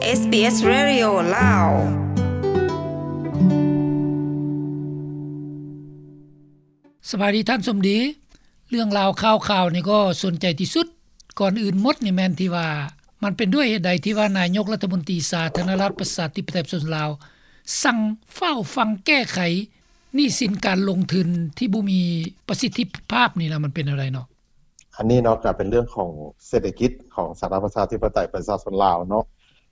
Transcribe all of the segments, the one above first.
ເອສບີເອສ Radio ລາວ. ສະບາຍດີທ່ານສົມດີ. ເລື່ອງລາວຂ່າວຄາວນີ້ກໍສົນໃຈທີ່ສຸດ. ກ່ອນອື່ນໝົດນີ້ແມ່ນທີ່ວ່າ ມັນເປັນດ້ວຍເຫດໃດທີ່ວ່ານາຍົກລັດຖະມົນຕີສາທາລະນະລັດປະຊາທິປະໄຕປະຊາຊົນລາວ ສັ່ງຟ້າວຟັ່ງແກ້ໄຂໜີ້ສິນການລົງທຶນທີ່ບໍ່ມີປະສິດທິພາບນີ້ລະ ມັນເປັນແນວໃດເນາະ? ອັນນີ້ເນາະ ກໍເປັນເລື່ອງຂອງເສດຖະກິດຂອງສາທາລະນະລັດປະຊາທິປະໄຕປະຊາຊົນລາວເນາະ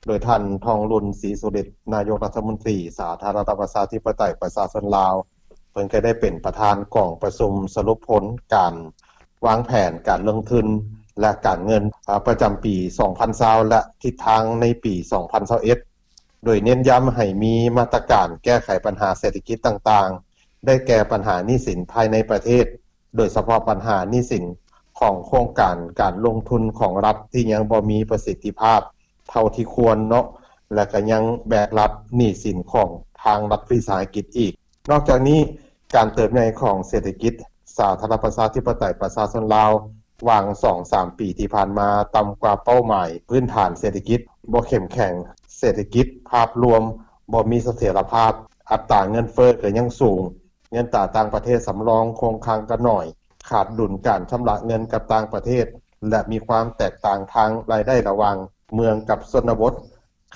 ໂດຍທ່ານ ທອງລຸນ ສີສຸລິດ ນາຍົກລັດຖະມົນຕີສາທາລະນະລັດປະຊາທິປະໄຕປະຊາຊົນລາວ ເພິ່ນກໍໄດ້ເປັນປະທານກອງປະຊຸມສະຫຼຸບຜົນການວາງແຜນການລົງທຶນ ແລະ ການເງິນ ອາ ປະຈຳປີສອງພັນຊາວ ແລະ ທິດທາງໃນປີສອງພັນຊາວເອັດ ໂດຍເນັ້ນຢ້ຳໃຫ້ມີມາດຕະການແກ້ໄຂບັນຫາເສດຖະກິດຕ່າງໆ ໄດ້ແກ່ບັນຫາໜີ້ສິນພາຍໃນປະເທດ ໂດຍສະເພາະບັນຫາໜີ້ສິນຂອງໂຄງການການລົງທຶນຂອງລັດທີ່ຍັງບໍ່ມີປະສິດທິພາບເທົ່າທີ່ຄວນເນາະ ແລະ ກໍຍັງແບກຮັບໜີ້ສິນຂອງທາງລັດວິສາຫະກິດອີກ. ນອກຈາກນີ້, ການເຕີບໃຫຍ່ຂອງເສດຖະກິດສາທາລະນະລັດປະຊາທິປະໄຕປະຊາຊົນລາວ ຫວ່າງສອງສາມປີທີ່ຜ່ານມາ ຕ່ຳກວ່າເປົ້າໝາຍພື້ນຖານເສດຖະກິດ, ບໍ່ເຂັ້ມແຂງເສດຖະກິດ, ພາບລວມບໍ່ມີສະຖຽນລະພາບ, ອັດຕາເງິນເຟີ້ກໍຍັງສູງ, ເງິນຕາຕ່າງປະເທດສຳລອງຄົງຄ້າງກໍໜ້ອຍ, ຂາດດຸນການຊຳລະເງິນກັບຕ່າງປະເທດ ແລະ ມີຄວາມແຕກຕ່າງທາງລາຍໄດ້ລະຫວ່າງເມືອງກັບຊົນນະບົດ,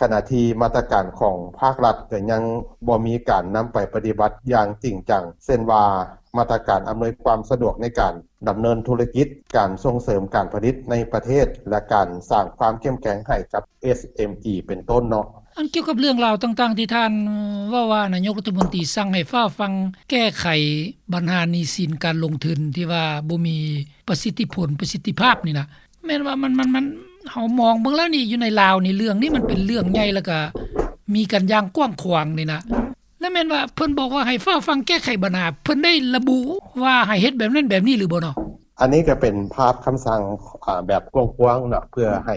ຂະນະທີ່ມາດຕະການຂອງພາກລັດກໍຍັງບໍ່ມີການນຳໄປປະຕິບັດຢ່າງຈິງຈັງ, ເຊັ່ນວ່າ ມາດຕະການອຳນວຍຄວາມສະດວກໃນການດຳເນີນທຸລະກິດ, ການສົ່ງເສີມການຜະລິດໃນປະເທດ ແລະ ການສ້າງຄວາມເຂັ້ມແຂງໃຫ້ກັບ ເອສເອັມອີ ເປັນຕົ້ນເນາະ. ອັນກ່ຽວກັບເລື່ອງລາວຕ່າງໆທີ່ທ່ານເວົ້າວ່າ ນາຍົກລັດຖະມົນຕີສັ່ງໃຫ້ຟ້າວຟັ່ງແກ້ໄຂບັນຫາໜີ້ສິນການລົງທຶນທີ່ວ່າບໍ່ມີປະສິດທິຜົນ, ປະສິດທິພາບນີ້ນະ, ແມ່ນວ່າມັນ, ມັນ, ມັນ, ເຮົາມອງເບິ່ງແລ້ວນີ້ ຢູ່ໃນລາວນີ້ ເລື່ອງນີ້ມັນເປັນເລື່ອງໃຫຍ່ ແລ້ວກະມີກັນຢ່າງກວ້າງຂວາງນີ້ນະ. ແລະແມ່ນວ່າເພິ່ນບອກວ່າໃຫ້ຟ້າວຟັ່ງແກ້ໄຂບັນຫາ, ເພິ່ນໄດ້ລະບຸວ່າໃຫ້ເຮັດແບບນັ້ນແບບນີ້ຫຼືບໍ່ເນາະ? ອັນນີ້ກໍເປັນພາບຄຳສັ່ງ, ອາ, ແບບກວ້າງໆເນາະ, ເພື່ອໃຫ້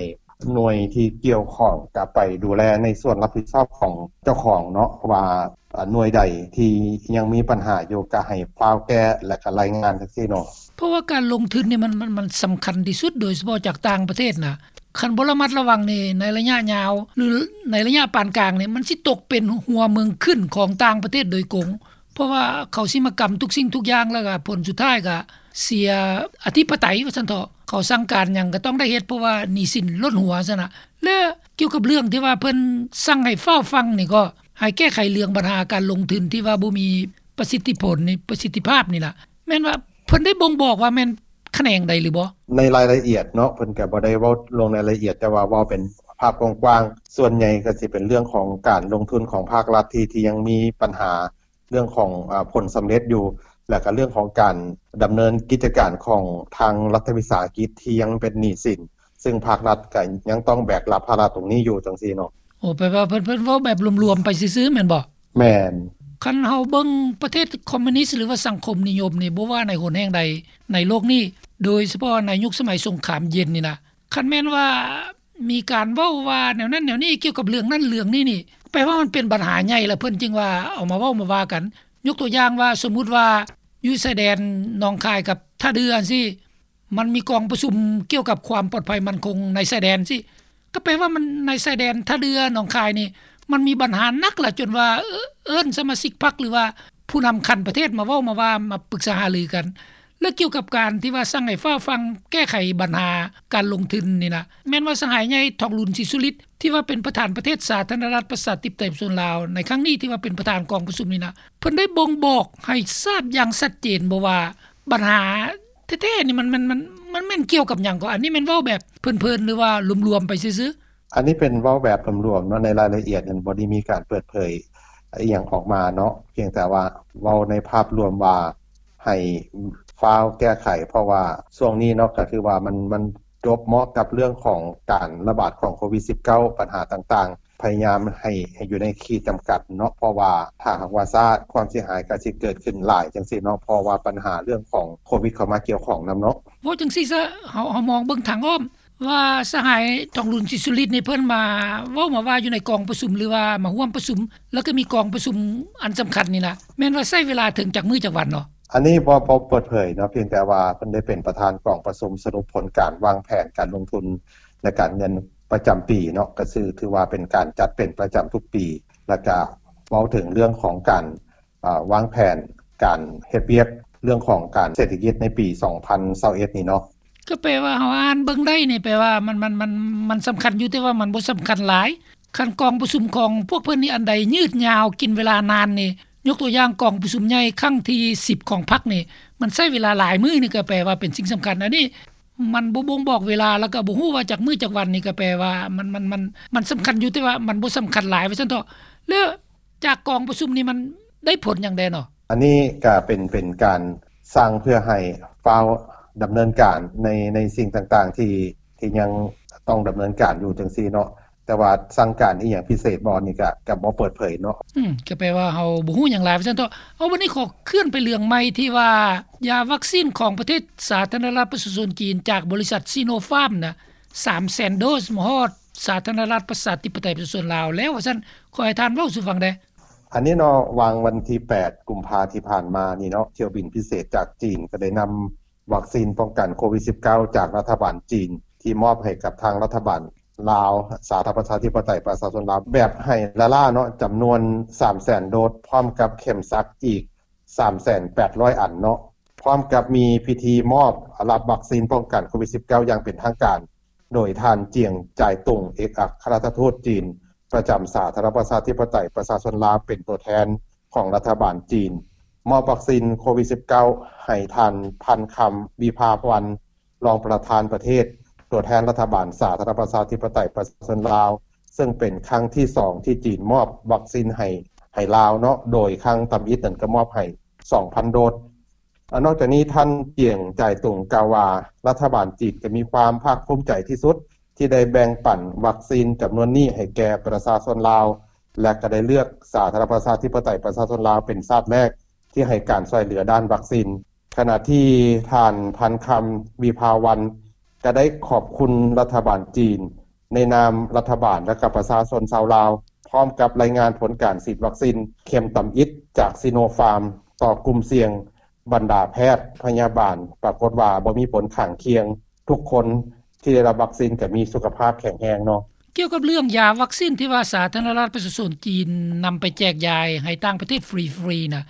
ໜ່ວຍທີ່ກ່ຽວຂ້ອງກໍໄປດູແລໃນສ່ວນຮັບຜິດຊອບຂອງເຈົ້າຂອງເນາະ, ວ່າ ອາ, ໜ່ວຍໃດທີ່ຍັງມີບັນຫາຢູ່ ກໍໃຫ້ຟ້າວແກ້ ແລະ ກໍລາຍງານຈັ່ງຊີ້ເນາະ. ເພາະວ່າການລົງທຶນນີ້ມັນ, ມັນ, ມັນສຳຄັນທີ່ສຸດ, ໂດຍສະເພາະຈາກຕ່າງປະເທດນະ. ຄັນບໍ່ລະມັດລະວັງນີ້ ໃນໄລຍະຍາວ ຫຼື ໃນໄລຍະປານກາງນີ້ ມັນຊິຕົກເປັນຫົວເມືອງຂຶ້ນຂອງຕ່າງປະເທດໂດຍກົງ, ເພາະວ່າເຂົາຊິມາກຳທຸກສິ່ງທຸກຢ່າງ ແລ້ວກໍຜົນສຸດທ້າຍກໍເສຍອະທິປະໄຕວ່າຊັ້ນເຖາະ, ເຂົາສັ່ງການຫຍັງກໍຕ້ອງໄດ້ເຮັດ ເພາະວ່າໜີ້ສິນລົ້ນຫົວຊັ້ນນະ. ແລະ ກ່ຽວກັບເລື່ອງທີ່ວ່າເພິ່ນສັ່ງໃຫ້ຟ້າວຟັ່ງນີ້ ກໍໃຫ້ແກ້ໄຂເລື່ອງບັນຫາການລົງທຶນທີ່ວ່າບໍ່ມີປະສິດທິຜົນນີ້, ປະສິດທິພາບນີ້ລະ, ແມ່ນວ່າເພິ່ນໄດ້ບົ່ງບອກວ່າແມ່ນຂະແໜງໃດຫຼືບໍ່? ໃນລາຍລະອຽດເນາະ ເພິ່ນກໍບໍ່ໄດ້ເວົ້າລົງໃນລາຍລະອຽດ, ແຕ່ວ່າເວົ້າເປັນພາບກວ້າງໆ, ສ່ວນໃຫຍ່ກໍຊິເປັນເລື່ອງຂອງການລົງທຶນຂອງພາກລັດທີ່, ທີ່ຍັງມີບັນຫາເລື່ອງຂອງ, ອາ, ຜົນສຳເລັດຢູ່, ແລ້ວກໍເລື່ອງຂອງການດຳເນີນກິດຈະການຂອງທາງລັດຖະວິສາຫະກິດທີ່ຍັງເປັນໜີ້ສິນ, ຊຶ່ງພາກລັດກໍຍັງຕ້ອງແບກຮັບພາລະຕົງນີ້ຢູ່ ຈັ່ງຊີ້ເນາະ. ໂອ້ ແປວ່າເພິ່ນ, ເພິ່ນເວົ້າແບບລວມໆໄປຊື່ໆແມ່ນບໍ່? ແມ່ນ. ຄັນເຮົາເບິ່ງປະເທດຄອມມູນິດ ຫຼືວ່າສັງຄົມນິຍົມນີ້ ບໍ່ວ່າໃນຫົນແຫ່ງໃດໃນໂລກນີ້, ໂດຍສະເພາະໃນຍຸກສະໄໝສົງຄາມເຢັນນີ້ນະ, ຄັນແມ່ນວ່າມີການເວົ້າວ່າແນວນັ້ນແນວນີ້ກ່ຽວກັບເລື່ອງນັ້ນເລື່ອງນີ້ນີ້, ແປວ່າມັນເປັນບັນຫາໃຫຍ່ ແລ້ວເພິ່ນຈຶ່ງວ່າເອົາມາເວົ້າມາວ່າກັນ. ຍົກຕົວຢ່າງວ່າ ສົມມຸດວ່າຢູ່ຊາຍແດນໜອງຄາຍກັບທ່າເດື່ອຈັ່ງຊີ້, ມັນມີກອງປະຊຸມກ່ຽວກັບຄວາມປອດໄພໝັ້ນຄົງໃນຊາຍແດນຊີ້, ກໍແປວ່າມັນໃນຊາຍແດນທ່າເດື່ອ ໜອງຄາຍນີ້ ມັນມີບັນຫາໜັກລະ ຈົນວ່າເອີ້ນສະມາຊິກພັກ ຫຼືວ່າຜູ້ນຳຂັ້ນປະເທດມາເວົ້າມາວ່າ ມາປຶກສາຫາລືກັນ. ແລະ ກ່ຽວກັບການທີ່ວ່າສັ່ງໃຫ້ຟ້າວຟັ່ງແກ້ໄຂບັນຫາການລົງທຶນນີ້ນະ, ແມ່ນວ່າສະຫາຍໃຫຍ່ ທອງລຸນ ສີສຸລິດ ທີ່ວ່າເປັນປະທານປະເທດສາທາລະນະລັດປະຊາທິປະໄຕປະຊາຊົນລາວໃນຄັ້ງນີ້ ທີ່ວ່າເປັນປະທານກອງປະຊຸມນີ້ນະ, ເພິ່ນໄດ້ບົ່ງບອກໃຫ້ຊາບຢ່າງຊັດເຈນບໍ່ວ່າບັນຫາ ແທ້ໆນີ້ມັນ, ມັນ, ມັນ, ມັນແມ່ນກ່ຽວກັບຫຍັງກໍ? ອັນນີ້ແມ່ນເວົ້າແບບເພີນໆ ຫຼືວ່າລວມໆໄປຊື່ໆ? ອັນນີ້ເປັນເວົ້າແບບລວມໆເນາະ, ໃນລາຍລະອຽດນັ້ນບໍ່ໄດ້ມີການເປີດເຜີຍອີ່ຫຍັງອອກມາເນາະ, ພຽງແຕ່ວ່າເວົ້າໃນພາບລວມວ່າໃຫ້ຟ້າວແກ້ໄຂ, ເພາະວ່າຊ່ວງນີ້ເນາະ ກໍຄືວ່າມັນ, ມັນຈົບເໝາະກັບເລື່ອງຂອງການລະບາດຂອງໂຄວິດສິບເກົ້າ ບັນຫາຕ່າງໆ ພະຍາຍາມໃຫ້, ໃຫ້ຢູ່ໃນຂີດຈຳກັດເນາະ, ເພາະວ່າຖ້າຫາກວ່າຊ້າ ຄວາມເສຍຫາຍກໍຊິເກີດຂຶ້ນຫຼາຍຈັ່ງຊີ້ເນາະ, ເພາະວ່າບັນຫາເລື່ອງຂອງໂຄວິດເຂົ້າມາກ່ຽວຂ້ອງນຳເນາະ. ເວົ້າຈັ່ງຊີ້ຊະ, ເຮົາ, ເຮົາມອງເບິ່ງທາງອ້ອມວ່າສະຫາຍ ທອງລຸນ ສີສຸລິດ ນີ້ ເພິ່ນມາເວົ້າມາວ່າຢູ່ໃນກອງປະຊຸມ ຫຼືວ່າມາຮ່ວມປະຊຸມ, ແລ້ວກໍມີກອງປະຊຸມອັນສຳຄັນນີ້ນະ, ແມ່ນວ່າໃຊ້ເວລາເຖິງຈັກມື້ຈັກວັນເນາະ? ອັນນີ້ບໍ່, ບໍ່ເປີດເຜີຍເນາະ, ພຽງແຕ່ວ່າເພິ່ນໄດ້ເປັນປະທານກອງປະຊຸມສະຫຼຸບຜົນການວາງແຜນການລົງທຶນ ແລະ ການເງິນ ປະຈຳປີເນາະ ກໍຄືຖືວ່າເປັນການຈັດເປັນປະຈຳທຸກປີ ແລ້ວກໍເວົ້າເຖິງເລື່ອງຂອງການ ອາ ວາງແຜນການເຮັດວຽກ ເລື່ອງຂອງການເສດຖະກິດໃນປີສອງພັນຊາວເອັດນີ້ເນາະ. ກໍແປວ່າເຮົາອ່ານເບິ່ງໄດ້ນີ້ ແປວ່າມັນ ມັນ ມັນ ມັນສຳຄັນຢູ່ ແຕ່ວ່າມັນບໍ່ສຳຄັນຫຼາຍ. ຄັນກອງປະຊຸມຂອງພວກເພິ່ນນີ້ອັນໃດຍືດຍາວ ກິນເວລານານນີ້ ຍົກຕົວຢ່າງກອງປະຊຸມໃຫຍ່ຄັ້ງທີສິບຂອງພັກນີ້ ມັນໃຊ້ເວລາຫຼາຍມື້ນີ້ ກໍແປວ່າເປັນສິ່ງສຳຄັນ. ອັນນີ້ມັນບໍ່ບົ່ງບອກເວລາ ແລ້ວກໍບໍ່ຮູ້ວ່າຈັກມື້ຈັກວັນນີ້ ກໍແປວ່າມັນ ມັນ ມັນ ມັນສຳຄັນຢູ່ ແຕ່ວ່າມັນບໍ່ສຳຄັນຫຼາຍ ວ່າຊັ້ນເຖາະ. ແລ້ວຈາກກອງປະຊຸມນີ້ມັນໄດ້ຜົນຫຍັງແດ່ເນາະ? ອັນນີ້ກໍເປັນ ເປັນການສ້າງເພື່ອໃຫ້ຟ້າວດຳເນີນການໃນ ໃນສິ່ງຕ່າງໆ ທີ່ ທີ່ຍັງຕ້ອງດຳເນີນການຢູ່ຈັ່ງຊີ້ເນາະ. ແຕ່ວ່າສັ່ງການອີ່ຫຍັງພິເສດບໍ່ນີ້ ກະ ກະບໍ່ເປີດເຜີຍເນາະ. ອືມ ກໍແປວ່າເຮົາບໍ່ຮູ້ຫຍັງຫຼາຍ ວ່າຊັ້ນເຖາະ. ເອົາ ບັດນີ້ຂໍເຄື່ອນໄປເລື່ອງໃໝ່ ທີ່ວ່າຢາວັກຊີນຂອງປະເທດສາທາລະນະລັດປະຊາຊົນຈີນ ຈາກບໍລິສັດຊີໂນຟາມນະ ສາມແສນໂດສ ມາຮອດສາທາລະນະລັດປະຊາທິປະໄຕປະຊາຊົນລາວແລ້ວ ວ່າຊັ້ນ. ຂໍໃຫ້ທ່ານເວົ້າສູ່ຟັງແດ່. ອັນນີ້ເນາະ ຫວ່າງວັນທີແປດ ກຸມພາທີ່ຜ່ານມານີ້ເນາະ ຖ້ຽວບິນພິເສດຈາກຈີນກໍໄດ້ນຳ ວັກຊີນປ້ອງກັນໂຄວິດສິບເກົ້າ ຈາກລັດຖະບານຈີນ ທີ່ມອບໃຫ້ກັບທາງລັດຖະບານລາວ ສາທາລະນະລັດປະຊາທິປະໄຕປະຊາຊົນລາວ ແບບໃຫ້ລ້າໆເນາະ ຈຳນວນສາມແສນໂດສ ພ້ອມກັບເຂັມສັກອີກສາມແສນແປດຮ້ອຍອັນເນາະ ພ້ອມກັບມີພິທີມອບຮັບວັກຊີນປ້ອງກັນໂຄວິດສິບເກົ້າ ຢ່າງເປັນທາງການ ໂດຍທ່ານ ຈຽງ ຈາຍຕຸງ ເອກອັກຄະລັດຖະທູດຈີນ ປະຈຳສາທາລະນະລັດປະຊາທິປະໄຕປະຊາຊົນລາວ ເປັນຕົວແທນຂອງລັດຖະບານຈີນ ມອບວັກຊີນໂຄວິດສິບເກົ້າ ໃຫ້ທ່ານ ພັນຄຳ ວິພາວັນ ຮອງປະທານປະເທດ ຕົວແທນລັດຖະບານສາທາລະນະລັດປະຊາທິປະໄຕປະຊາຊົນລາວ ເຊິ່ງເປັນຄັ້ງທີສອງທີ່ຈີນມອບວັກຊີນໃຫ້ ໃຫ້ລາວເນາະ ໂດຍຄັ້ງທຳອິດນັ້ນກໍມອບໃຫ້ສອງພັນໂດສ. ອາ ນອກຈາກນີ້ ທ່ານ ຈຽງ ຈາຍຕຸງ ກ່າວວ່າ ລັດຖະບານຈີນກໍມີຄວາມພາກພູມໃຈທີ່ສຸດ ທີ່ໄດ້ແບ່ງປັນວັກຊີນຈຳນວນນີ້ໃຫ້ແກ່ປະຊາຊົນລາວ ແລະ ກໍໄດ້ເລືອກສາທາລະນະລັດປະຊາທິປະໄຕປະຊາຊົນລາວເປັນຊາດແລກທີ່ໃຫ້ການຊ່ວຍເຫຼືອດ້ານວັກຊີນ. ຂະນະທີ່ທ່ານ ພັນຄຳ ວິພາວັນ ກໍໄດ້ຂອບຄຸນລັດຖະບານຈີນ ໃນນາມລັດຖະບານ ແລະ ກໍປະຊາຊົນຊາວລາວ ພ້ອມກັບລາຍງານຜົນການສີດວັກຊີນເຂັມທຳອິດຈາກຊີໂນຟາມ ຕໍ່ກຸ່ມສ່ຽງ ບັນດາແພດພະຍາບານ ປາກົດວ່າບໍ່ມີຜົນຂ້າງຄຽງ ທຸກຄົນທີ່ໄດ້ຮັບວັກຊີນກໍມີສຸຂະພາບແຂງແຮງເນາະ. ກ່ຽວກັບເລື່ອງຢາວັກຊີນທີ່ວ່າສາທາລະນະລັດປະຊາຊົນຈີນນຳໄປແຈກຢາຍໃຫ້ຕ່າງປະເທດຟຣີໆນະ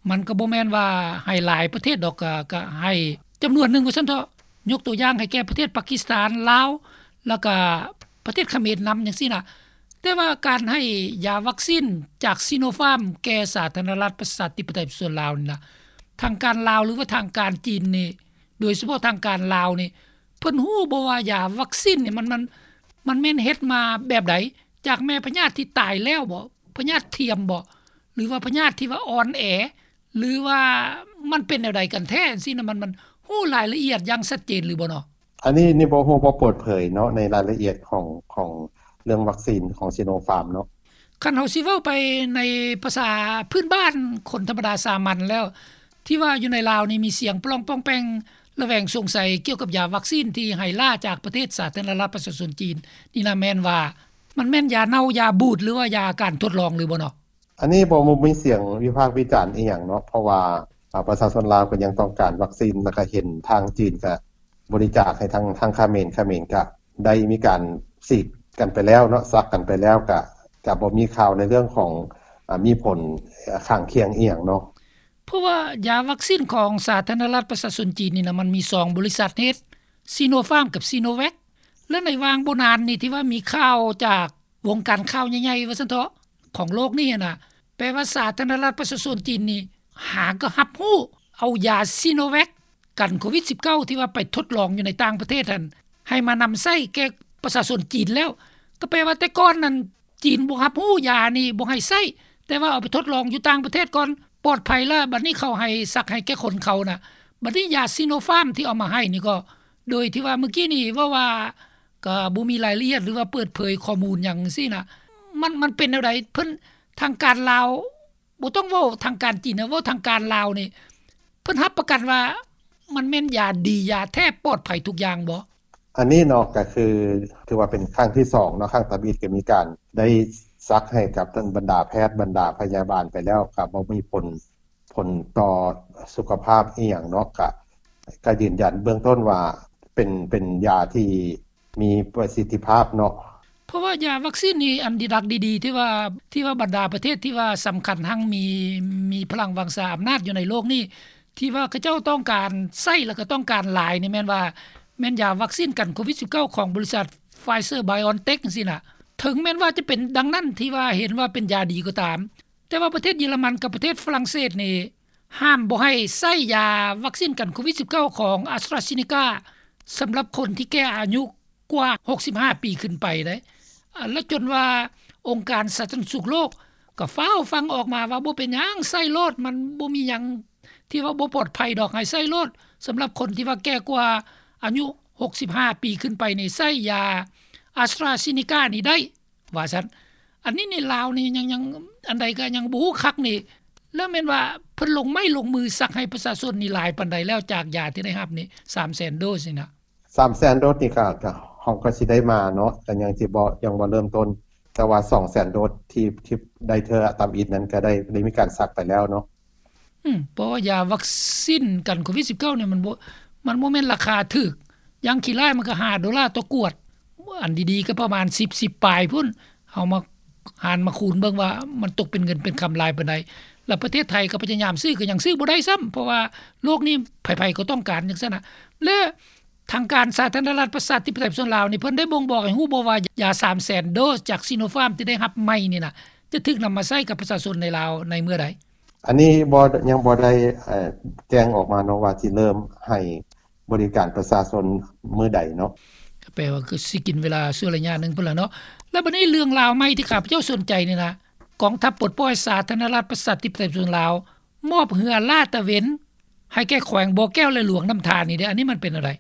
ມັນກໍບໍ່ແມ່ນວ່າໃຫ້ຫຼາຍປະເທດດອກ ກະ ກະໃຫ້ຈຳນວນໜຶ່ງວ່າຊັ້ນເຖາະ. ຍົກຕົວຢ່າງໃຫ້ແກ່ປະເທດປາກິສຖານ, ລາວ ແລ້ວກະປະເທດຂະເໝນນຳຈັ່ງຊີ້ນະ. ແຕ່ວ່າການໃຫ້ຢາວັກຊີນຈາກຊີໂນຟາມແກ່ສາທາລະນະລັດປະຊາທິປະໄຕປະຊາຊົນລາວນີ້ນະ ທາງການລາວ ຫຼືວ່າທາງການຈີນນີ້ ໂດຍສະເພາະທາງການລາວນີ້ ເພິ່ນຮູ້ບໍ່ວ່າຢາວັກຊີນນີ້ມັນ ມັນ ມັນແມ່ນເຮັດມາແບບໃດ? ຈາກແມ່ພະຍາດທີ່ຕາຍແລ້ວບໍ? ພະຍາດທຽມບໍ? ຫຼືວ່າພະຍາດທີ່ວ່າອ່ອນແອ? ຫຼືວ່າມັນເປັນແນວໃດກັນແທ້? ຈັ່ງຊີ້ນະ ມັນ ມັນຮູ້ລາຍລະອຽດຢ່າງຊັດເຈນຫຼືບໍ່ເນາະ? ອັນນີ້ ນີ້ບໍ່ຮູ້ ບໍ່ເປີດເຜີຍເນາະ ໃນລາຍລະອຽດຂອງ ຂອງເລື່ອງວັກຊີນຂອງຊີໂນຟາມເນາະ. ຄັນເຮົາຊິເວົ້າໄປໃນພາສາພື້ນບ້ານຄົນທຳມະດາສາມັນແລ້ວ ທີ່ວ່າຢູ່ໃນລາວນີ້ມີສຽງປະລອງປ່ອງແປ່ງ ລະແວງສົງໄສກ່ຽວກັບຢາວັກຊີນທີ່ໃຫ້ລ້າຈາກປະເທດສາທາລະນະລັດປະຊາຊົນຈີນນີ້ນະ ແມ່ນວ່າມັນແມ່ນຢາເນົ່າ ຢາບູດ ຫຼືວ່າຢາການທົດລອງຫຼືບໍ່ເນາະ? ອັນນີ້ບໍ່ ບໍ່ມີສຽງວິພາກວິຈານອີ່ຫຍັງເນາະ ເພາະວ່າ ອາ ປະຊາຊົນລາວກໍຍັງຕ້ອງການວັກຊີນ ແລ້ວກໍເຫັນທາງຈີນກໍບໍລິຈາກໃຫ້ທາງ ທາງຂະເໝນ ຂະເໝນກໍໄດ້ມີການສີດກັນໄປແລ້ວເນາະ ສັກກັນໄປແລ້ວ ກໍ ກໍບໍ່ມີຂ່າວໃນເລື່ອງຂອງ ອາ ມີຜົນຂ້າງຄຽງອີ່ຫຍັງເນາະ. ເພາະວ່າຢາວັກຊີນຂອງສາທາລະນະລັດປະຊາຊົນຈີນນີ້ນະ ມັນມີສອງບໍລິສັດເຮັດ ຊີໂນຟາມກັບຊີໂນແວັກ ແລະ ໃນຫວ່າງບໍ່ນານນີ້ ທີ່ວ່າມີຂ່າວຈາກວົງການຂ່າວໃຫຍ່ໆ ວ່າຊັ້ນເຖາະ ຂອງໂລກນີ້ຫັ້ນນະ ແປວ່າສາທາລະນະລັດປະຊາຊົນຈີນນີ້ຫາກໍຮັບຮູ້ເອົາຢາຊີໂນແວັກກັນໂຄວິດສິບເກົ້າ ທີ່ວ່າໄປທົດລອງຢູ່ໃນຕ່າງປະເທດຫັ້ນ ໃຫ້ມານຳໃຊ້ແກ່ປະຊາຊົນຈີນແລ້ວ ກໍແປວ່າແຕ່ກ່ອນນັ້ນ ຈີນບໍ່ຮັບຮູ້ຢານີ້ ບໍ່ໃຫ້ໃຊ້ ແຕ່ວ່າເອົາໄປທົດລອງຢູ່ຕ່າງປະເທດກ່ອນ ປອດໄພລະ ບັດນີ້ເຂົາໃຫ້ສັກໃຫ້ແກ່ຄົນເຂົານະ. ບັດນີ້ຢາຊີໂນຟາມທີ່ເອົາມາໃຫ້ນີ້ກໍ ໂດຍທີ່ວ່າມື້ກີ້ນີ້ເວົ້າວ່າ ກໍບໍ່ມີລາຍລະອຽດ ຫຼືວ່າເປີດເຜີຍຂໍ້ມູນຫຍັງຊີ້ນະ ມັນ ມັນເປັນແນວໃດ? ເພິ່ນ ທາງການລາວ ບໍ່ຕ້ອງເວົ້າທາງການຈີນນະ ເວົ້າທາງການລາວນີ້ ເພິ່ນຮັບປະກັນວ່າມັນແມ່ນຢາດີ ຢາແທ້ ປອດໄພທຸກຢ່າງບໍ່? ອັນນີ້ເນາະ ກໍຄືຖືວ່າເປັນຄັ້ງທີສອງເນາະ ຄັ້ງທຳອິດກໍມີການໄດ້ສັກໃຫ້ກັບທັງບັນດາແພດ ບັນດາພະຍາບານໄປແລ້ວ ກໍບໍ່ມີຜົນ ຜົນຕໍ່ສຸຂະພາບອີ່ຫຍັງເນາະ ກະ ກະຢືນຢັນເບື້ອງຕົ້ນວ່າເປັນ ເປັນຢາທີ່ ມີປະສິດທິພາບເນາະ. ເພາະວ່າຢາວັກຊີນນີ້ ອັນດີດັກດີໆ ທີ່ວ່າ ທີ່ວ່າບັນດາປະເທດທີ່ວ່າສຳຄັນຮັ່ງມີ ມີພະລັງວັງຊາອຳນາດຢູ່ໃນໂລກນີ້ ທີ່ວ່າເຂົາເຈົ້າຕ້ອງການໃຊ້ ແລ້ວກໍຕ້ອງການຫຼາຍນີ້ ແມ່ນວ່າ ແມ່ນຢາວັກຊີນກັນໂຄວິດສິບເກົ້າ ຂອງບໍລິສັດ Pfizer BioNTech ຈັ່ງຊີ້ນະ. ເຖິງແມ່ນວ່າຈະເປັນດັ່ງນັ້ນ ທີ່ວ່າເຫັນວ່າເປັນຢາດີກໍຕາມ, ແຕ່ວ່າປະເທດເຢຍລະມັນກັບປະເທດຝຣັ່ງເສດນີ້ ຫ້າມບໍ່ໃຫ້ໃຊ້ຢາວັກຊີນກັນໂຄວິດສິບເກົ້າ ຂອງ AstraZeneca ສຳລັບຄົນທີ່ແກ່ອາຍຸກວ່າຫົກສິບຫ້າປີຂຶ້ນໄປເດ້. ແລະ ຈົນວ່າອົງການສາທາລະນະສຸກໂລກກໍຟ້າວຟັ່ງອອກມາວ່າ ບໍ່ເປັນຫຍັງ ໃຊ້ໂລດ, ມັນບໍ່ມີຫຍັງທີ່ວ່າບໍ່ປອດໄພດອກ, ໃຫ້ໃຊ້ໂລດ. ສຳລັບຄົນທີ່ວ່າແກ່ກວ່າອາຍຸຫົກສິບຫ້າປີຂຶ້ນໄປນີ້ ໃຊ້ຢາ AstraZeneca ນີ້ໄດ້ ວ່າຊັ້ນ. ອັນນີ້ໃນລາວນີ້ຍັງ ຍັງ ອັນໃດກໍຍັງບໍ່ຮູ້ຄັກນີ້. ແລ້ວແມ່ນວ່າເພິ່ນລົງໄມ້ລົງມືສັກໃຫ້ປະຊາຊົນນີ້ຫຼາຍປານໃດແລ້ວ ຈາກຢາທີ່ໄດ້ຮັບນີ້ ສາມແສນໂດສນີ້ນະ? ສາມແສນໂດສນີ້ກໍ ກໍ ເຮົາກໍຊິໄດ້ມາເນາະ, ກໍຍັງຊິບໍ່ ຍັງບໍ່ເລີ່ມຕົ້ນ, ແຕ່ວ່າສອງແສນໂດສທີ່ ທີ່ໄດ້ເທື່ອທຳອິດນັ້ນ ກໍໄດ້ ໄດ້ມີການສັກໄປແລ້ວເນາະ. ອືມ ເພາະວ່າຢາວັກຊີນກັນໂຄວິດສິບເກົ້ານີ້ ມັນບໍ່ ມັນບໍ່ແມ່ນລາຄາຖືກ, ຢ່າງຂີ້ຮ້າຍມັນກໍຫ້າໂດລາຕໍ່ຂວດ, ອັນດີໆກໍປະມານສິບ ສິບປາຍພຸ້ນ. ເຮົາມາຫານມາຄູນເບິ່ງວ່າມັນຕົກເປັນເງິນເປັນຄຳຫຼາຍປານໃດ. ແລ້ວປະເທດໄທກໍພະຍາຍາມຊື້ ກໍຍັງຊື້ບໍ່ໄດ້ຊ້ຳ, ເພາະວ່າໂລກນີ້ໃຜໆກໍຕ້ອງການຈັ່ງຊັ້ນນະ. ແລະ ທາງການສາທາລະນະລັດປະຊາທິປະໄຕຍປະຊາຊົນລາວນີ້ ເພິ່ນໄດ້ບົ່ງບອກໃຫ້ຮູ້ບໍ່ວ່າ ຢາສາມແສນໂດສຈາກ Sinopharm ທີ່ໄດ້ຮັບໃໝ່ນີ້ນະ ຈະຖືກນຳມາໃຊ້ກັບປະຊາຊົນໃນລາວໃນເມື່ອໃດ? ອັນນີ້ບໍ່ ຍັງບໍ່ໄດ້ ເອີ ແຈ້ງອອກມາເນາະ ວ່າຊິເລີ່ມໃຫ້ບໍລິການປະຊາຊົນມື້ໃດເນາະ. ກໍແປວ່າຄືຊິກິນເວລາຊົ່ວໄລຍະໜຶ່ງພຸ້ນລະເນາະ. ແລ້ວບັດນີ້ເລື່ອງລາວໃໝ່ທີ່ຂ້າພະເຈົ້າສົນໃຈນີ້ນະ, ກອງທັບປົດປ່ອຍສາທາລະນະລັດປະຊາທິປະໄຕປະຊາຊົນລາວ ມອບເຮືອລາດຕະເວນໃຫ້ແກ່ແຂວງບໍ່ແກ້ວ ແລະ ຫຼວງນ້ຳທານີ້ເດ້. ອັນນີ້ມັນເປັນແນວໃດ?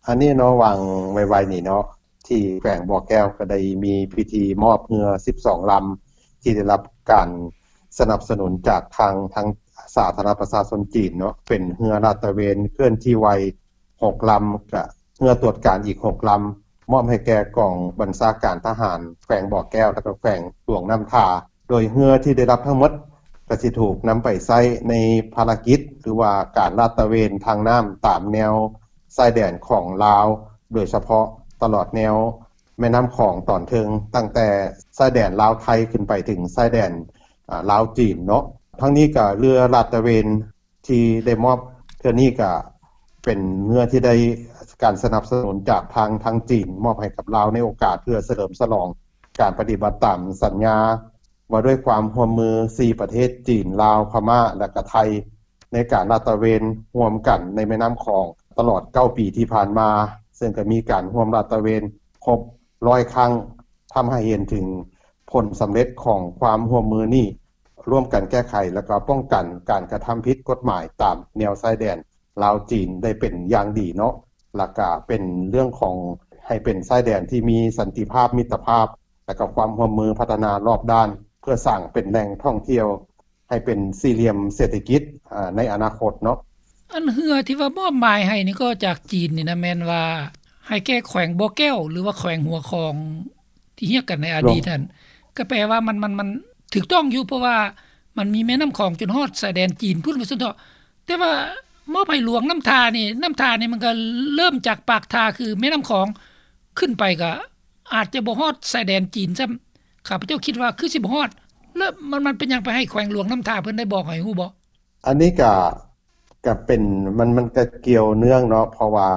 ອັນນີ້ເນາະ ຫວ່າງໄວໆນີ້ເນາະ ທີ່ແຂວງບໍ່ແກ້ວກໍໄດ້ມີພິທີມອບເຮືອສິບສອງລຳ ທີ່ໄດ້ຮັບການສະໜັບສະໜູນຈາກທາງ ທາງສາທາລະນະລັດປະຊາຊົນຈີນເນາະ, ເປັນເຮືອລາດຕະເວນເຄື່ອນທີ່ໄວຫົກລຳ ກະເຮືອຕວດການອີກຫົກລຳ ມອບໃຫ້ແກ່ກອງບັນຊາການທະຫານແຂວງບໍ່ແກ້ວ ແລະ ກະແຂວງຫຼວງນ້ຳທາ. ໂດຍເຮືອທີ່ໄດ້ຮັບທັງໝົດ ກະຊິຖືກນຳໄປໃຊ້ໃນພາລະກິດ ຫຼືວ່າການລາດຕະເວນທາງນ້ຳຕາມແນວຊາຍແດນຂອງລາວ, ໂດຍສະເພາະຕະຫຼອດແນວແມ່ນ້ຳຂອງຕອນເທິງ ຕັ້ງແຕ່ຊາຍແດນລາວໄທຂຶ້ນໄປເຖິງຊາຍແດນ ອາ ລາວຈີນເນາະ. ທັງນີ້ກະເຮືອລາດຕະເວນທີ່ໄດ້ມອບເທື່ອນີ້ກະເປັນເຮືອທີ່ໄດ້ການສະໜັບສະໜູນຈາກທາງ ທາງຈີນ ມອບໃຫ້ກັບລາວໃນໂອກາດເພື່ອສະເຫຼີມສະຫຼອງການປະຕິບັດຕາມສັນຍາ ວ່າດ້ວຍຄວາມຮ່ວມມືສີ່ປະເທດ ຈີນ, ລາວ, ພະມ້າ ແລະ ກະໄທ ໃນການລາດຕະເວນຮ່ວມກັນໃນແມ່ນ້ຳຂອງຕະຫຼອດເກົ້າປີທີ່ຜ່ານມາ, ເຊິ່ງກະມີການຮ່ວມລາດຕະເວນຄົບຮ້ອຍຄັ້ງ, ທຳໃຫ້ເຫັນເຖິງຜົນສຳເລັດຂອງຄວາມຮ່ວມມືນີ້, ຮ່ວມກັນແກ້ໄຂ ແລະ ກະປ້ອງກັນການກະທຳຜິດກົດໝາຍຕາມແນວຊາຍແດນ ລາວຈີນໄດ້ເປັນຢ່າງດີເນາະ, ແລ້ວກະເປັນເລື່ອງຂອງໃຫ້ເປັນຊາຍແດນທີ່ມີສັນຕິພາບ, ມິດຕະພາບ ແລ້ວກະຄວາມຮ່ວມມືພັດທະນາລອບດ້ານ ເພື່ອສ້າງເປັນແຫຼ່ງທ່ອງທ່ຽວໃຫ້ເປັນສີ່ຫຼ່ຽມເສດຖະກິດ ອາ ໃນອະນາຄົດເນາະ. ອັນເຮືອທີ່ວ່າມອບໝາຍໃຫ້ນີ້ກໍຈາກຈີນນີ້ນະ ແມ່ນວ່າໃຫ້ແກ່ແຂວງບໍ່ແກ້ວ ຫຼືວ່າແຂວງຫົວຂອງ ທີ່ຮຽກກັນໃນອະດີດຫັ້ນ ກໍແປວ່າມັນ ມັນ ມັນຖືກຕ້ອງຢູ່ ເພາະວ່າມັນມີແມ່ນ້ຳຂອງຈົນຮອດຊາຍແດນຈີນພຸ້ນ ວ່າຊັ້ນເຖາະ. ແຕ່ວ່າມອບໃຫ້ຫຼວງນ້ຳທານີ້ ນ້ຳທານີ້ມັນກໍເລີ່ມຈາກປາກທ່າ ຄືແມ່ນ້ຳຂອງ ຂຶ້ນໄປກໍອາດຈະບໍ່ຮອດຊາຍແດນຈີນຊ້ຳ. ຂ້າພະເຈົ້າຄິດວ່າຄືຊິບໍ່ຮອດ. ແລ້ວມັນ ມັນເປັນຫຍັງໄປໃຫ້ແຂວງຫຼວງນ້ຳທາ ເພິ່ນໄດ້ບອກໃຫ້ຮູ້ບໍ່? ອັນນີ້ກະ ກະເປັນ ມັນ ມັນກະກ່ຽວເນື່ອງເນາະ ເພາະວ່າ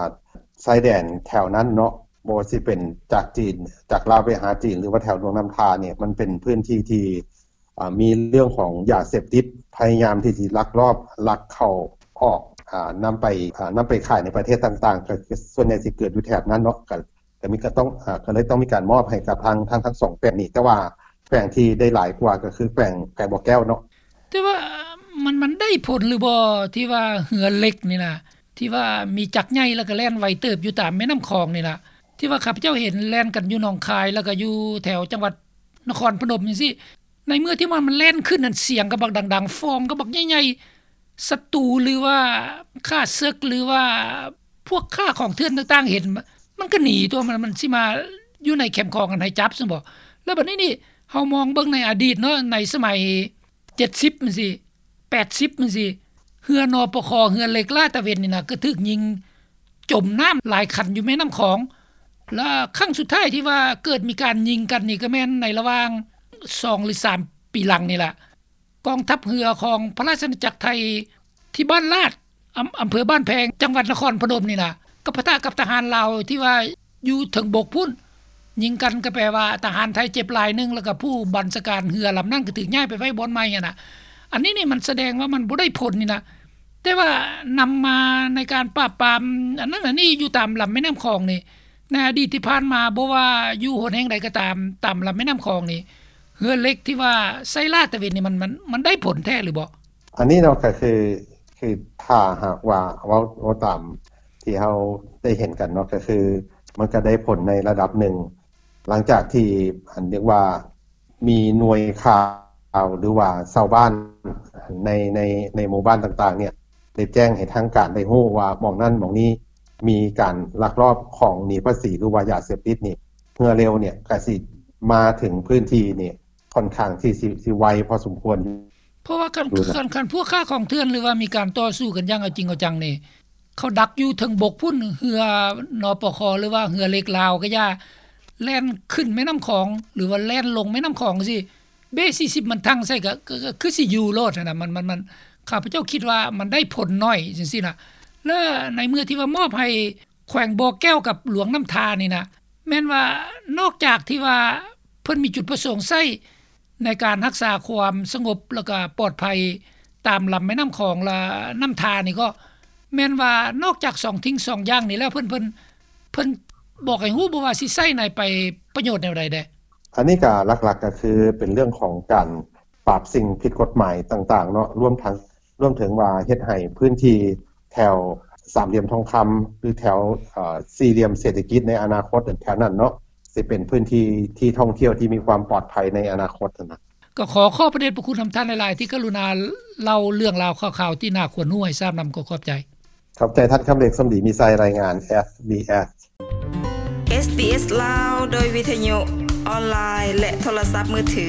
ຊາຍແດນແຖວນັ້ນເນາະ ບໍ່ວ່າຊິເປັນຈາກຈີນ ຈາກລາວໄປຫາຈີນ ຫຼືວ່າແຖວຫຼວງນ້ຳທານີ້ ມັນເປັນພື້ນທີ່ທີ່ ອາ ມີເລື່ອງຂອງຢາເສບຕິດ ພະຍາຍາມທີ່ຊິລັກລອບ ລັກເຂົ້າອອກ ອາ ນຳໄປ ອາ ນຳໄປຂາຍໃນປະເທດຕ່າງໆ ກະສ່ວນໃຫຍ່ຊິເກີດຢູ່ແຖບນັ້ນເນາະ ກະ ກະມີ ກະຕ້ອງ ອາ ກະເລີຍຕ້ອງມີການມອບໃຫ້ກັບທາງ ທາງ ທັງສອງແຂວງນີ້ ແຕ່ວ່າແຂວງທີ່ໄດ້ຫຼາຍກວ່າກໍຄືແຂວງ ແຂວງບໍ່ແກ້ວເນາະ. ແຕ່ວ່າມັນ ມັນໄດ້ຜົນຫຼືບໍ່ ທີ່ວ່າເຮືອເຫຼັກນີ້ນະ ທີ່ວ່າມີຈັກໃຫຍ່ ແລ້ວກໍແລ່ນໄວເຕີບຢູ່ຕາມແມ່ນ້ຳຂອງນີ້ນະ ທີ່ວ່າຂ້າພະເຈົ້າເຫັນແລ່ນກັນຢູ່ໜອງຄາຍ ແລ້ວກໍຢູ່ແຖວຈັງຫວັດນະຄອນພະນົມຈັ່ງຊີ້. ໃນເມື່ອທີ່ມັນ ມັນແລ່ນຂຶ້ນນັ້ນ ສຽງກໍບັກດັງໆ ຟອງກໍບັກໃຫຍ່ໆ ສັດຕູ ຫຼືວ່າຂ້າເສິກ ຫຼືວ່າພວກຄ້າຂອງເຖື່ອນຕ່າງໆ ເຫັນ ມັນກໍໜີຕົວະ ມັນ ມັນຊິມາຢູ່ໃນແຄມຂອງຫັ້ນໃຫ້ຈັບຊັ້ນບໍ? ແລ້ວບັດນີ້ນີ້ ເຮົາມອງເບິ່ງໃນອະດີດເນາະ ໃນສະໄໝເຈັດສິບຈັ່ງຊີ້ ແປດສິບຈັ່ງຊີ້ ເຮືອ ນປຄ ເຮືອເຫຼັກລາດຕະເວນນີ້ນະ ກໍຖືກຍິງຈົມນ້ຳຫຼາຍຄັນຢູ່ແມ່ນ້ຳຂອງ. ລະຄັ້ງສຸດທ້າຍທີ່ວ່າເກີດມີການຍິງກັນນີ້ ກໍແມ່ນໃນລະຫວ່າງສອງ ຫຼື ສາມ ປີຫຼັງນີ້ລະ ກອງທັບເຮືອຂອງພະລາຊະອານາຈັກໄທ ທີ່ບ້ານລາດ ອຳ ອຳເພີບ້ານແພງ ຈັງຫວັດນະຄອນພະນົມນີ້ນະ ກໍປະທະກັບທະຫານລາວທີ່ວ່າຢູ່ເທິງບົກພຸ້ນ ຍິງກັນ ກໍແປວ່າທະຫານໄທເຈັບລາຍໜຶ່ງ ແລ້ວກໍຜູ້ບັນຊາການເຮືອລຳນັ້ນກໍຖືກຍ້າຍໄປໄວ້ບ່ອນໃໝ່ຫັ້ນນະ. ອັນນີ້ນີ້ມັນສະແດງວ່າມັນບໍ່ໄດ້ຜົນນີ້ນະ. ແຕ່ວ່ານຳມາໃນການປາບປາມອັນນັ້ນອັນນີ້ຢູ່ຕາມລຳແມ່ນ້ຳຂອງນີ້ ໃນອະດີດທີ່ຜ່ານມາ ບໍ່ວ່າຢູ່ຫົນແຫ່ງໃດກໍຕາມ ຕາມລຳແມ່ນ້ຳຂອງນີ້ ເຮືອເຫຼັກທີ່ວ່າໃຊ້ລາດຕະເວນນີ້ ມັນ ມັນ ມັນໄດ້ຜົນແທ້ຫຼືບໍ່? ອັນນີ້ເນາະ ກໍຄື ຄືຖ້າຫາກວ່າເວົ້າ ເວົ້າຕາມທີ່ເຮົາໄດ້ເຫັນກັນເນາະ ກໍຄືມັນກໍໄດ້ຜົນໃນລະດັບໜຶ່ງ ຫຼັງຈາກທີ່ ອັນ ເອີ້ນວ່າ ມີໜ່ວຍຂ່າວ ຫຼືວ່າຊາວບ້ານໃນ ໃນ ໃນໝູ່ບ້ານຕ່າງໆ ເນ່ຍ ໄດ້ແຈ້ງໃຫ້ທາງການໄດ້ຮູ້ວ່າ ໝ່ອງນັ້ນໝ່ອງນີ້ມີການລັກລອບຂອງໜີພາສີ ຫຼືວ່າຢາເສບຕິດນີ້ ເຮືອເລັກເນ່ຍ ກໍຊິມາເຖິງພື້ນທີ່ນີ້ ຂ້ອນຂ້າງທີ່ຊິ ຊິໄວພໍສົມຄວນ. ເພາະວ່າຄັນ ຄັນ ຄັນພວກຄ້າຂອງເຖື່ອນ ຫຼືວ່າມີການຕໍ່ສູ້ກັນຢ່າງເອົາຈິງເອົາຈັງນີ້ ເຂົາດັກຢູ່ເທິງບົກພຸ້ນ ເຮືອ ນປຄ ຫຼືວ່າເຮືອເຫຼັກລາວກໍຢ່າ ແລ່ນຂຶ້ນແມ່ນ້ຳຂອງ ຫຼືວ່າແລ່ນລົງແມ່ນ້ຳຂອງຈັ່ງຊີ້ ເບສີ່ສິບມັນທັ່ງໃສ່ ກໍ ກໍ ກໍຄືຊິຢູ່ໂລດຫັ້ນນະ. ມັນ ມັນ ມັນ ຂ້າພະເຈົ້າຄິດວ່າມັນໄດ້ຜົນໜ້ອຍຈັ່ງຊີ້ນະ. ແລະ ໃນເມື່ອທີ່ວ່າມອບໃຫ້ແຂວງບໍ່ແກ້ວກັບຫຼວງນ້ຳທານີ້ນະ ແມ່ນວ່ານອກຈາກທີ່ວ່າເພິ່ນມີຈຸດປະສົງໃຊ້ໃນການຮັກສາຄວາມສະຫງົບ ແລ້ວກໍປອດໄພຕາມລຳແມ່ນ້ຳຂອງ ແລະ ນ້ຳທານີ້ ກໍແມ່ນວ່ານອກຈາກສອງສິ່ງສອງຢ່າງນີ້ແລ້ວ ເພິ່ນ ເພິ່ນ ເພິ່ນບອກໃຫ້ຮູ້ບໍ່ວ່າຊິໃຊ້ໃນໄປປະໂຫຍດແນວໃດແດ່? ອັນນີ້ກໍຫຼັກໆ ກໍຄືເປັນເລື່ອງຂອງການປາບສິ່ງຜິດກົດໝາຍຕ່າງໆ ເນາະ ລວມທັງ ລວມເຖິງວ່າເຮັດໃຫ້ພື້ນທີ່ແຖວສາມຫຼ່ຽມທອງຄຳ ຫຼືແຖວ ເອີ ສີ່ຫຼ່ຽມເສດຖະກິດໃນອະນາຄົດແຖວນັ້ນເນາະ ຊິເປັນພື້ນທີ່ທີ່ທ່ອງທ່ຽວທີ່ມີຄວາມປອດໄພໃນອະນາຄົດຫັ້ນນະ. ກໍຂໍຂອບພະເດດພະຄຸນນຳທ່ານຫຼາຍໆ ທີ່ກະລຸນາເລົ່າເລື່ອງລາວຂ່າວໆ ທີ່ໜ້າຄວນຮູ້ໃຫ້ຊາບນຳ. ກໍຂອບໃຈ. ຂອບໃຈທ່ານຄຳເລັກ ສົມດີມີໄຊ ລາຍງານ ເອສບີເອສ ເອສບີເອສ ລາວ ໂດຍວິທະຍຸ ອອນລາຍ ແລະ ໂທລະສັບມືຖື.